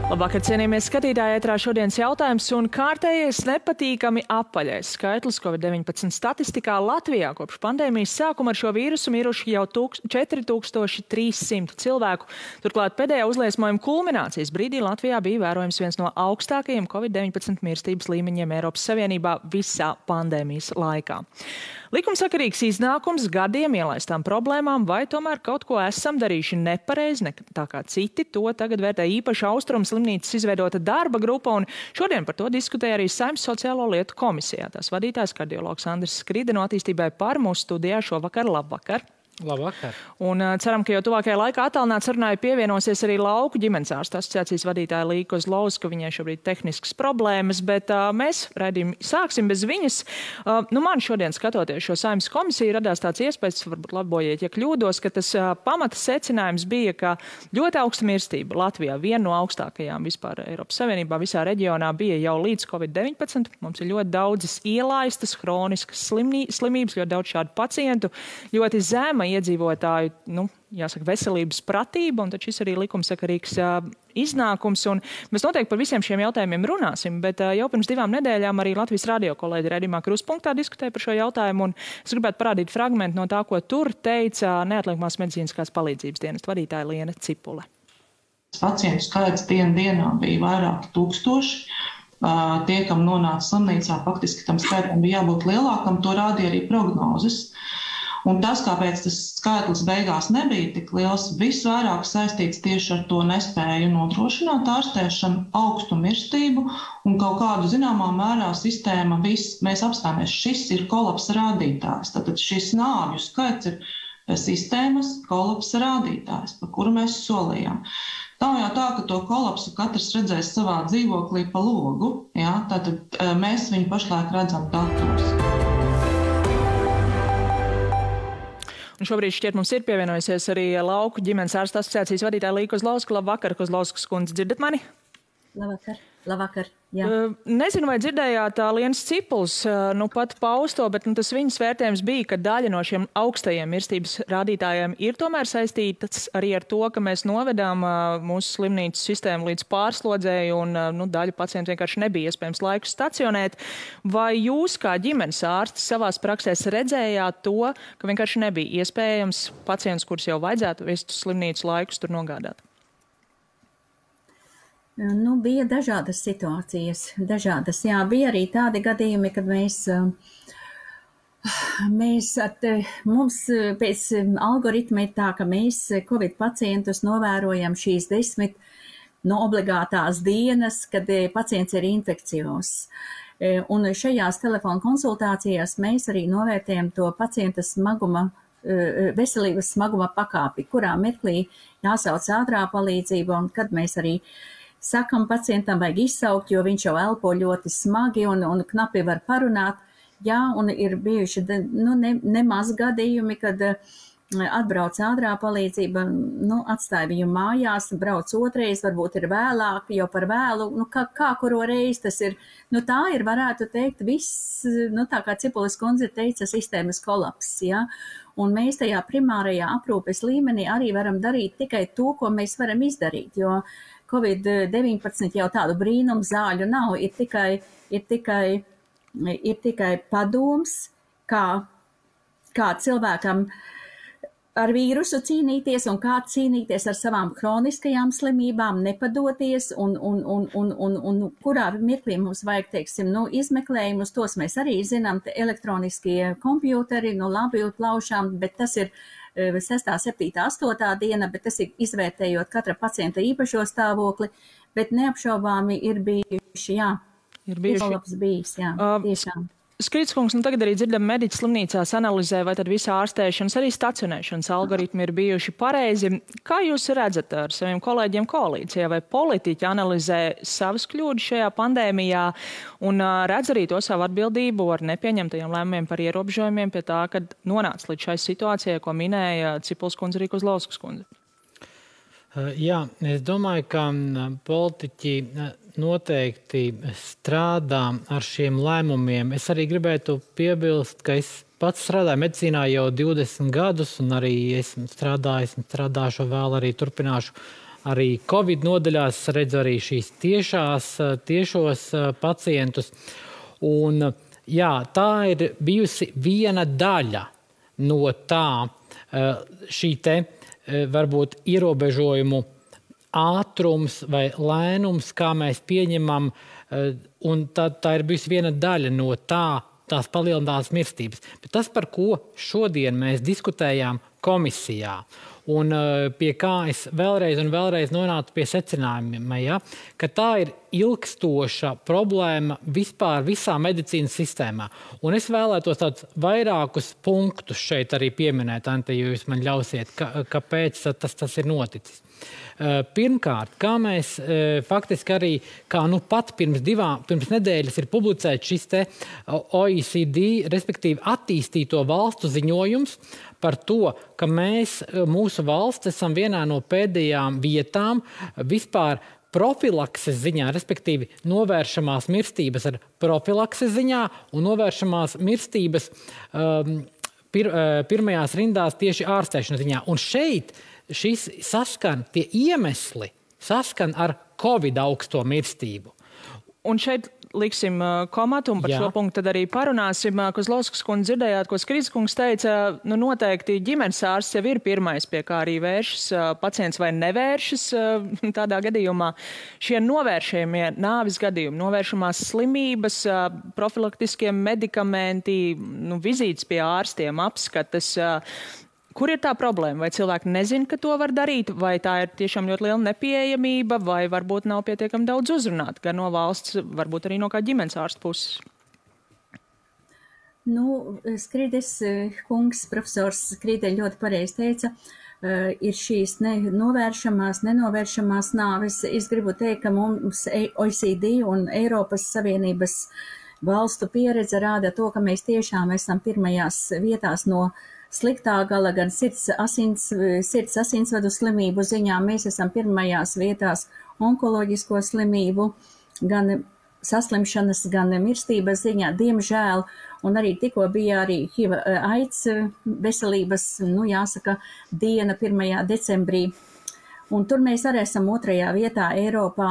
Labvakar, cienījamies skatītāji, ētrā šodienas jautājums un kārtējais nepatīkami apaļais skaitlis COVID-19 statistikā Latvijā kopš pandēmijas sākuma ar šo vīrusu miruši jau 4300 cilvēku. Turklāt pēdējā uzliesmojuma kulminācijas brīdī Latvijā bija vērojams viens no augstākajiem COVID-19 mirstības līmeņiem Eiropas Savienībā visā pandēmijas laikā. Likumsakarīgs iznākums gadiem ielaistām problēmām, vai tomēr kaut ko esam darījuši nepareizi, ne tā kā citi, to tagad vērtē īpaši Austrumu slimnīcas izveidota darba grupa, un šodien par to diskutēja arī Saeimas sociālo lietu komisijā. Tās vadītājs kardiologs Andris Skride no Attīstībai par mūsu studijā šovakar. Labvakar! Labvakar. Un ceram, ka jau tuvākajā laikā attālināt sarunai pievienosies arī Lauku ģimenes ārstu asociācijas vadītāja Līga Kozlovska, viņai šobrīd tehniskas problēmas, bet mēs raidījumu sāksim bez viņas. Man šodien skatoties šo Saeimas komisiju radās tāds iespējas, varbūt labojiet, ja kļūdos, ka tas pamata secinājums bija, ka ļoti augsta mirstība Latvijā, viena no augstākajām vispār Eiropas Savienībā, visā reģionā bija jau līdz COVID-19. Mums ir ļoti daudzas ielaistas, hroniskas slimības, ļoti daudz šādu pacientu, ļoti zema iedzīvotāju, jāsaka, veselības pratība, un tad šis arī likumsakarīgs iznākums. Un mēs noteikti par visiem šiem jautājumiem runāsim, bet jau pirms 2 nedēļām arī Latvijas radio kolēģi raidījumā Kruspunktā diskutēja par šo jautājumu, un es gribētu parādīt fragmentu no tā, ko tur teica neatliekamās medicīniskās palīdzības dienesta vadītāja Liena Cipule. Pacientu skaits dienā bija vairāki tūkstoši. Tie, kam nonāca slimnīcā, faktiski tam skaitam bija jābūt lielākam, to rādīja arī prognozes. Un tas, kāpēc tas skaitlis beigās nebija tik liels, visvairāk saistīts tieši ar to nespēju nodrošināt ārstēšanu, augstu mirstību un kaut kādu zināmā mērā sistēma mēs apstāmies. Šis ir kolapsa rādītājs. Tātad šis nāvju skaits ir sistēmas kolapsa rādītājs, par kuru mēs solījām. Tā jau tā, ka to kolapsu katrs redzēs savā dzīvoklī pa logu. Ja? Tātad mēs viņu pašlaik redzam datos. Un šobrīd šķiet mums ir pievienojusies arī Lauku ģimenes ārstu asociācijas vadītāja Līga Kozlovska. Labvakar, Kozlovskas kundze, dzirdat mani? Labvakar, jā. Nezinu, vai dzirdējāt Lienas Cipules pat pausto, bet tas viņas vērtējums bija, ka daļa no šiem augstajiem mirstības rādītājiem ir tomēr saistītas arī ar to, ka mēs novedām mūsu slimnīcu sistēmu līdz pārslodzēji un daļa pacientu vienkārši nebija iespējams laiku stacionēt. Vai jūs kā ģimenes ārsti savās praksēs redzējāt to, ka vienkārši nebija iespējams pacients, kurus jau vajadzētu vest uz slimnīcu laikus, tur nogādāt? Bija dažādas situācijas, Jā, bija arī tādi gadījumi, kad mums pēc algoritma ir tā, ka mēs Covid pacientus novērojam šīs 10 obligātās dienas, kad pacients ir infekcijos. Un šajās telefona konsultācijās mēs arī novērtējam to pacienta veselības smaguma pakāpi, kurā mirklī jāsauc ātrā palīdzība, un kad mēs arī sakam pacientam vajag izsaukt, jo viņš jau elpo ļoti smagi un knapi var parunāt. Jā, un ir bijuši nemaz gadījumi, kad atbrauc ātrā palīdzība, atstāja viņu mājās, brauc otrais, varbūt ir vēlāk, jau par vēlu, kā kuro reizi tas ir. Tā ir, varētu teikt, viss, tā kā Cipules kundze teica, sistēmas kolaps, jā. Un mēs tajā primārajā aprūpes līmenī arī varam darīt tikai to, ko mēs varam izdarīt, jo Covid-19 jau tādu brīnumu zāļu nav, ir tikai padoms, kā cilvēkam ar vīrusu cīnīties un kā cīnīties ar savām kroniskajām slimībām, nepadoties un kurā mirklī mums vajag, teiksim, izmeklējumus, tos mēs arī zinām, elektroniskie kompjūteri, labi plaušām, bet tas ir 6., 7., 8. diena, bet tas ir izvērtējot katra pacienta īpašo stāvokli, bet neapšaubāmi ir bijuši, jā. Ir bijuši. Bijis, jā, tiešām. Skridskungs, tagad arī dzirdam mediķi slimnīcās analizē, vai tad visa ārstēšanas, arī stacionēšanas algoritmi ir bijuši pareizi. Kā jūs redzat ar saviem kolēģiem koalīcijā, vai politiķi analizē savas kļūdas šajā pandēmijā un redz arī to savu atbildību ar nepieņemtajiem lēmumiem par ierobežojumiem pie tā, kad nonāca līdz šai situācijai, ko minēja Cipules kundze, arī Kozlovskas kundze? Jā, es domāju, ka politiķi noteikti strādā ar šiem lēmumiem. Es arī gribētu piebilst, ka es pats strādāju medicīnā jau 20 gadus un arī esmu strādājuši un vēl arī turpināšu arī Covid nodaļās redzu arī šīs tiešos pacientus. Un, jā, tā ir bijusi viena daļa no tā šī te varbūt ierobežojumu ātrums vai lēnums, kā mēs pieņemam, un tā ir bijusi viena daļa no tās palielinātās mirstības. Bet tas, par ko šodien mēs diskutējām komisijā, un pie kā es vēlreiz un vēlreiz nonācu pie secinājumiem, ja, ka tā ir ilgstoša problēma vispār visā medicīnas sistēmā. Un es vēlētos tādus vairākus punktus šeit arī pieminēt, Ante, ja jūs man ļausiet, kāpēc tas ir noticis. Pirmkārt, kā mēs faktiski arī, kā pat pirms nedēļas ir publicēts šis te OECD, respektīvi attīstīto valstu ziņojums par to, ka mūsu valsts esam vienā no pēdējām vietām vispār profilakses ziņā, respektīvi novēršamās mirstības ar profilakses ziņā un novēršamās mirstības pirmajās rindās tieši ārstēšanas ziņā. Un šeit šis tie iemesli saskan ar Covid augsto mirstību. Un šeit liksim komatu un par šo punktu tad arī parunāsim. Kozlovskas kundze dzirdējāt, ko Skrīdis kungs teica, noteikti ģimenes ārsts jau ir pirmais, pie kā arī vēršas pacients vai nevēršas tādā gadījumā. Šie novēršamie nāvis gadījumi, novēršamās slimības, profilaktiskie medikamenti, vizītes pie ārstiem, apskates. Kur ir tā problēma? Vai cilvēki nezin, ka to var darīt, vai tā ir tiešām ļoti liela nepieejamība, vai varbūt nav pietiekami daudz uzrunāt, gan no valsts, varbūt arī no kā ģimenes ārsta puses? Skrīdis kungs, profesors Skrīdē ļoti pareizi teica, ir šīs novēršamās, nenovēršamās nāves. Es gribu teikt, ka mums OECD un Eiropas Savienības valstu pieredze rāda to, ka mēs tiešām esam pirmajās vietās no sliktā gala, gan sirds asinsvadu slimību ziņā. Mēs esam pirmajās vietās onkoloģisko slimību, gan saslimšanas, gan mirstības ziņā, diemžēl. Un arī tikko bija arī HIV AIDS veselības, jāsaka, diena 1. decembrī. Un tur mēs arī esam 2. vietā Eiropā,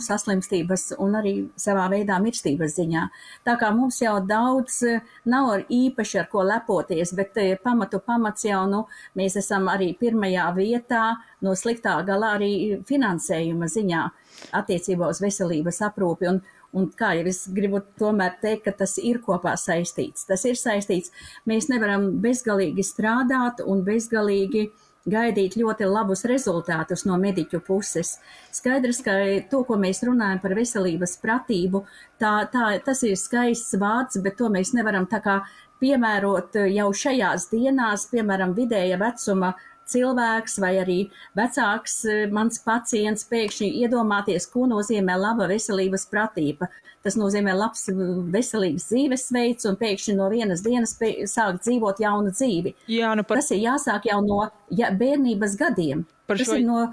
saslimstības un arī savā veidā mirstības ziņā. Tā kā mums jau daudz nav īpaši ar ko lepoties, bet pamats jau, mēs esam arī 1. vietā no sliktā galā arī finansējuma ziņā attiecībā uz veselības aprūpi. Un kā jau es gribu tomēr teikt, ka tas ir kopā saistīts. Tas ir saistīts. Mēs nevaram bezgalīgi strādāt un bezgalīgi gaidīt ļoti labus rezultātus no mediķu puses. Skaidrs, ka to, ko mēs runājam par veselības pratību, tas ir skaists vārds, bet to mēs nevaram tā kā piemērot jau šajās dienās, piemēram, vidēja vecuma cilvēks vai arī vecāks mans pacients pēkšņi iedomāties, ko nozīmē laba veselības pratība. Tas nozīmē labs veselīgs dzīvesveids un pēkšņi no vienas dienas sākt dzīvot jaunu dzīvi. Jā, Tas ir jāsāk jau no bērnības gadiem. Tas ir no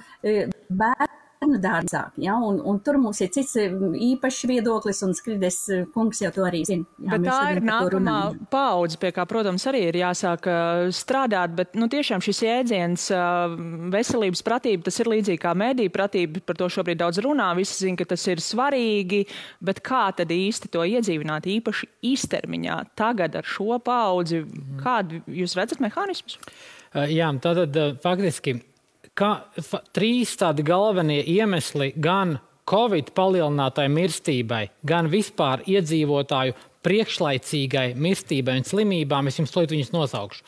bērnu dārzā, un tur mums ir cits īpašs viedoklis, un Skrīdis kungs jau to arī zina. Bet tā ir nākamā paudze, pie kā, protams, arī ir jāsāk strādāt, bet tiešām šis jēdziens veselības pratība, tas ir līdzīgi kā mediju pratība, par to šobrīd daudz runā, visi zina, ka tas ir svarīgi, bet kā tad īsti to iedzīvināt īpaši īstermiņā tagad ar šo paudzi? Kādu jūs redzat mehānismus? Jā, tātad faktiski 3 tādi galvenie iemesli gan Covid palielinātai mirstībai, gan vispār iedzīvotāju priekšlaicīgai mirstībai un slimībām, es jums viņus nosaukšu.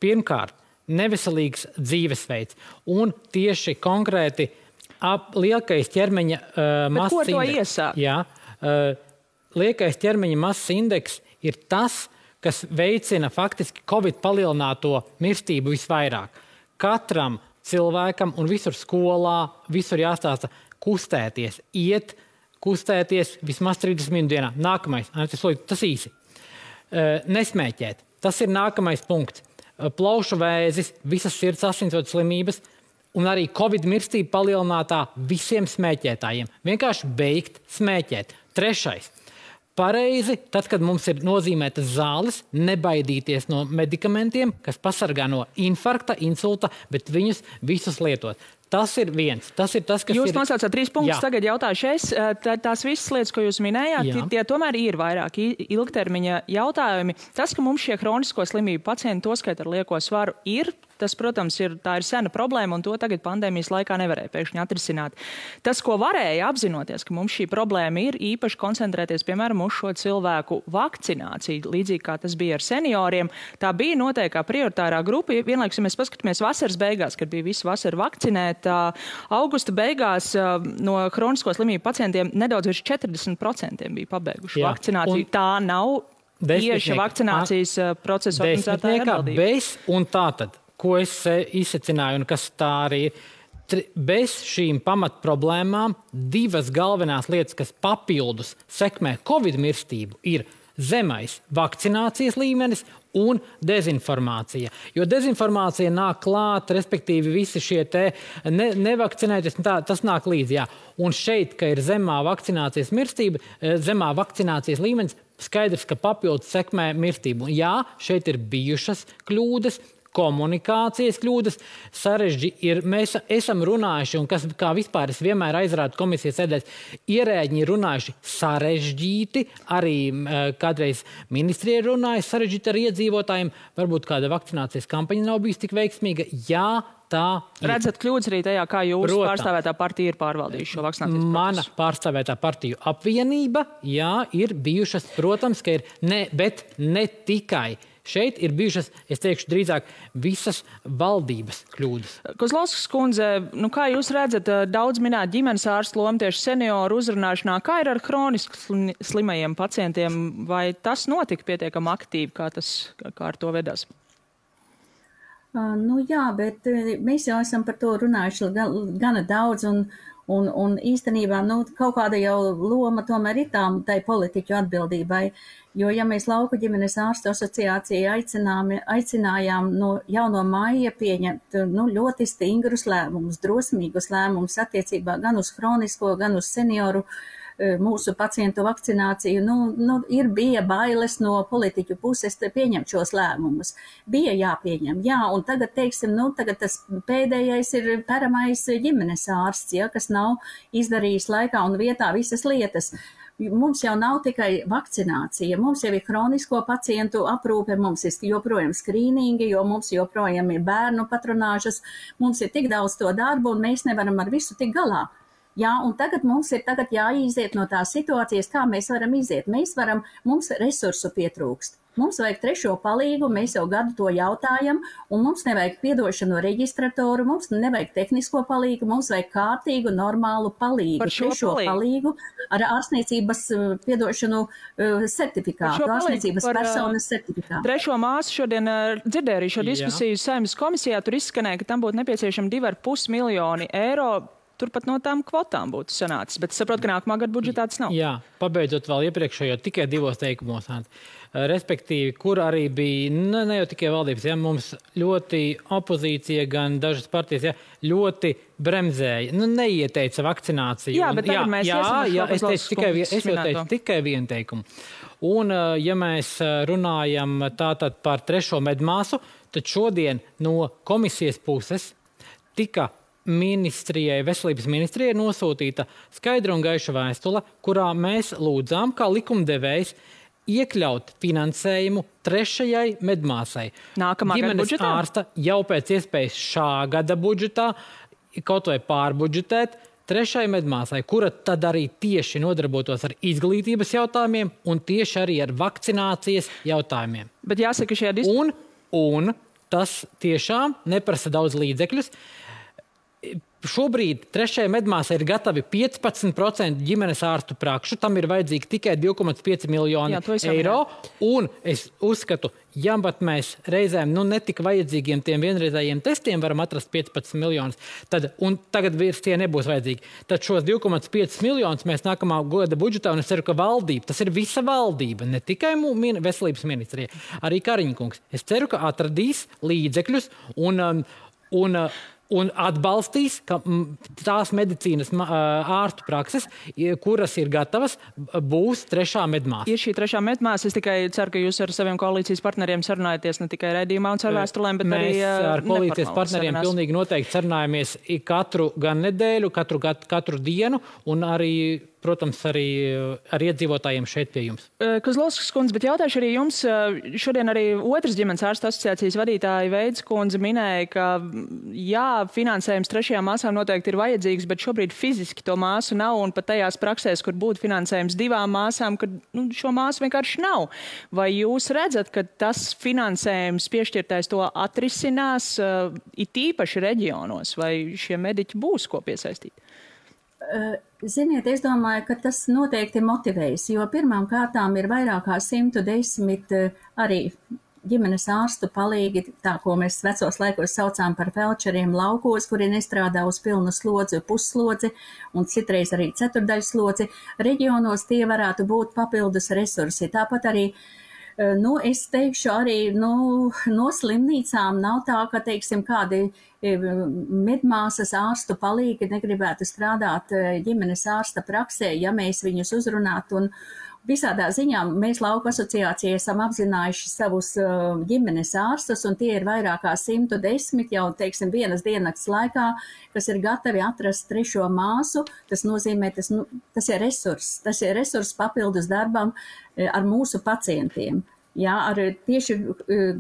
Pirmkārt, neveselīgs dzīvesveids un tieši konkrēti liekais ķermeņa masas indeks. Ko to iesāk? Jā, liekais ķermeņa masas indeks ir tas, kas veicina faktiski Covid palielināto mirstību visvairāk. Katram cilvēkam un visur skolā, visur jāstāsta kustēties, kustēties vismaz 30 minūtes dienā. Nākamais, tas īsi. Nesmēķēt. Tas ir nākamais punkts. Plaušu vēzis, visas sirds asinsvadu slimības un arī Covid mirstība palielinātā visiem smēķētājiem. Vienkārši beigt smēķēt. 3. pareizi, tad, kad mums ir nozīmētas zāles, nebaidīties no medikamentiem, kas pasargā no infarkta, insulta, bet viņus visus lietot. Tas ir viens. Tas ir tas, kas jūs nosaucāt 3 punktus, tagad jautāšu es. Tās visas lietas, ko jūs minējāt, tie tomēr ir vairāk ilgtermiņa jautājumi. Tas, ka mums šie hronisko slimību pacienti, toskait ar lieko svaru, tas, protams, tā ir sena problēma, un to tagad pandēmijas laikā nevarēja pēkšņi atrisināt. Tas, ko varēja apzinoties, ka mums šī problēma ir, īpaši koncentrēties, piemēram, uz šo cilvēku vakcināciju, līdzīgi kā tas bija ar senioriem, tā bija noteikti kā prioritārā grupa. Vienlaikus, ja mēs paskatāmies vasaras beigās, kad bija visu vasaru vakcinēt, augusta beigās no hronisko slimību pacientiem nedaudz virs 40% bija pabeiguši vakcināciju. Tā nav tieši vakcinācijas procesa organizētāja atbildība. Bez un tātad, ko es izsacināju un kas tā arī ir, bez šīm pamatproblēmām 2 galvenās lietas, kas papildus sekmē Covid mirstību, ir zemais vakcinācijas līmenis un dezinformācija. Jo dezinformācija nāk klāt, respektīvi visi šie nevakcinēties, tas nāk līdzi. Jā. Un šeit, ka ir zemā vakcinācijas mirstība, zemā vakcinācijas līmenis, skaidrs, ka papildus sekmē mirstību. Un jā, šeit ir bijušas kļūdas, komunikācijas kļūdas, mēs esam runājuši, un kas, kā vispār es vienmēr aizrādu komisijas sēdēs, ierēģi runājuši sarežģīti, arī kādreiz ministrija runājuši sarežģīti ar iedzīvotājiem, varbūt kāda vakcinācijas kampaņa nav bijusi tik veiksmīga. Jā, tā ir. Redzat kļūdas arī tajā, kā jūsu pārstāvētā partija ir pārvaldījuši šo vakcinācijas procesu? Mana pārstāvētā partiju apvienība, jā, ir bijušas, protams, ka ir bet ne tikai. Šeit ir bijušas, es teikšu, drīzāk visas valdības kļūdas. Kozlovskas kundze, kā jūs redzat, daudz minēt ģimenes ārstu lomu tieši senioru uzrunāšanā, kā ir ar hroniski slimajiem pacientiem, vai tas notika pietiekami aktīvi, kā ar to vedās? Jā, bet mēs jau esam par to runājuši gana daudz, un īstenībā kaut kāda jau loma tomēr ir tai politiķu atbildībai, jo ja mēs Lauku ģimenes ārstu asociāciju aicinājām jau no maija pieņemt ļoti stingrus lēmumus, drosmīgus lēmumus attiecībā gan uz hronisko, gan uz senioru mūsu pacientu vakcināciju, bija bailes no politiķu puses pieņemt šos lēmumus. Bija jāpieņem, un tagad, tagad tas pēdējais ir peramais ģimenes ārsts, kas nav izdarījis laikā un vietā visas lietas. Mums jau nav tikai vakcinācija, mums jau ir hronisko pacientu aprūpe, mums ir joprojām skrīningi, jo mums joprojām ir bērnu patronāžas, mums ir tik daudz to darbu un mēs nevaram ar visu tik galā. Un tagad mums ir jāiziet no tās situācijas, kā mēs varam iziet. Mums resursu pietrūkst. Mums vajag trešo palīgu, mēs jau gadu to jautājam, un mums nevajag piedošanu reģistratoru, mums nevajag tehnisko palīgu, mums vajag kārtīgu, normālu palīgu. Trešo palīgu ar ārstniecības piedošanu certifikātu, ārstniecības personas certifikātu. Trešo māsu šodien dzirdēju arī šo diskusiju Saeimas komisijā, tur izskanēja, ka tam būtu nepieciešami 2,5 miljoni eiro. Turpat no tām kvotām būtu sanācis, bet saprotu, ka nākamā gada budžetā tas nav. Jā, pabeidzot vēl iepriekšējo tikai 2 teikumos. Respektīvi, kur arī bija, ne jau tikai valdības, mums ļoti opozīcija, gan dažas partijas, ļoti bremzēja, neieteica vakcināciju. Jā, bet tagad mēs es jau teicu tikai 1 teikumu. Un, ja mēs runājam tātad par 3. medmāsu, tad šodien no komisijas puses tika veselības ministrijai nosūtīta skaidra un gaiša vēstule, kurā mēs lūdzām, kā likumdevējs, iekļaut finansējumu 3. medmāsai. Nākamā gada budžetā? Ģimenes ārsta jau pēc iespējas šā gada budžetā, kaut vai pārbudžetēt 3. medmāsai, kura tad arī tieši nodarbotos ar izglītības jautājumiem un tieši arī ar vakcinācijas jautājumiem. Bet jāsaka, šajā un tas tiešām neprasa daudz līdzekļus. Šobrīd 3. medmāsai ir gatavi 15% ģimenes ārstu prakšu, tam ir vajadzīgi tikai 2,5 miljoni eiro, un es uzskatu, ja pat mēs reizēm netik vajadzīgiem tiem vienreizējiem testiem varam atrast 15 miljonus, un tagad vairs tie nebūs vajadzīgi, tad šos 2,5 miljonus mēs nākamā gada budžetā, un es ceru, ka valdība, tas ir visa valdība, ne tikai veselības ministrija, arī Kariņkungs. Es ceru, ka atradīs līdzekļus un un atbalstīs, ka tās medicīnas ārstu prakses, kuras ir gatavas, būs trešā medmāsa. Ir šī trešā medmāsa. Es tikai ceru, ka jūs ar saviem koalīcijas partneriem sarunājaties ne tikai raidījumā un caur vēstulēm, bet mēs arī ar koalīcijas partneriem pilnīgi noteikti sarunājamies katru gan nedēļu, katru dienu un arī, protams, arī ar iedzīvotājiem šeit pie jums. Kozlovskas kundze, bet jautāšu arī jums. Šodien arī otras ģimenes ārstu asociācijas vadītāja Veids kundze minēja, ka jā, finansējums trešajām māsām noteikti ir vajadzīgs, bet šobrīd fiziski to māsu nav, un pat tajās praksēs, kur būtu finansējums 2 māsām, kad šo māsu vienkārši nav. Vai jūs redzat, ka tas finansējums piešķirtais to atrisinās it īpaši reģionos, vai šie mediķi būs ko piesaistīt? Ziniet, es domāju, ka tas noteikti motivēs, jo pirmām kārtām ir vairāk kā 110 arī ģimenes ārstu palīgi, tā, ko mēs vecos laikos saucām par felčeriem laukos, kuri nestrādā uz pilnu slodzi, pusslodzi un citreiz arī ceturdaļslodzi. Reģionos tie varētu būt papildus resursi. Tāpat arī es teikšu arī, no slimnīcām nav tā, ka, teiksim, kādi medmāsas ārstu palīgi negribētu strādāt ģimenes ārsta praksē, ja mēs viņus uzrunātu. Un visādā ziņā mēs Lauku asociācijā esam apzinājuši savus ģimenes ārstus, un tie ir vairāk kā 110 jau, teiksim, vienas diennakts laikā, kas ir gatavi atrast trešo māsu. Tas nozīmē, tas ir resurs. Tas ir resurs papildus darbam ar mūsu pacientiem. Jā, ar tieši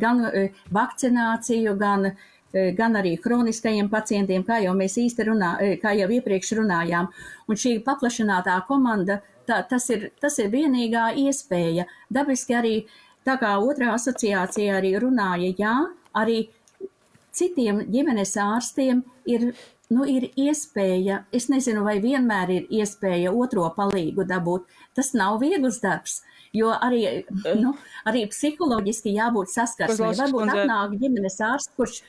gan vakcināciju, gan arī kroniskajiem pacientiem, kā jau mēs kā jau iepriekš runājām. Un šī paplašinātā komanda, tas ir vienīgā iespēja. Dabiski arī, tā kā otrā asociācija arī runāja, jā, arī citiem ģimenes ārstiem ir iespēja, es nezinu, vai vienmēr ir iespēja otro palīgu dabūt. Tas nav viegls darbs, jo arī psiholoģiski jābūt saskarsmē. Varbūt atnāk ģimenes ārsts, kurš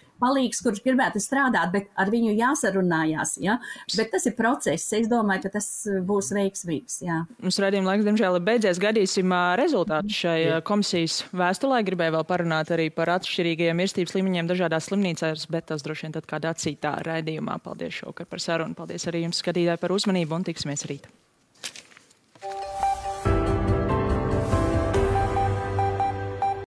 gribētu strādāt, bet ar viņu jāsarunājās. Ja? Bet tas ir process. Es domāju, ka tas būs veiksmīgs. Jā. Mums raidījuma laiks, diemžēl, ir beidzies. Gaidīsim rezultātus šai komisijas vēstulē. Gribēju vēl parunāt arī par atšķirīgajiem mirstības līmeņiem dažādās slimnīcās, bet tas droši vien tad kādā citā raidījumā. Paldies šovakar par sarunu. Paldies arī jums, skatītāji, par uzmanību un tiksimies rīt.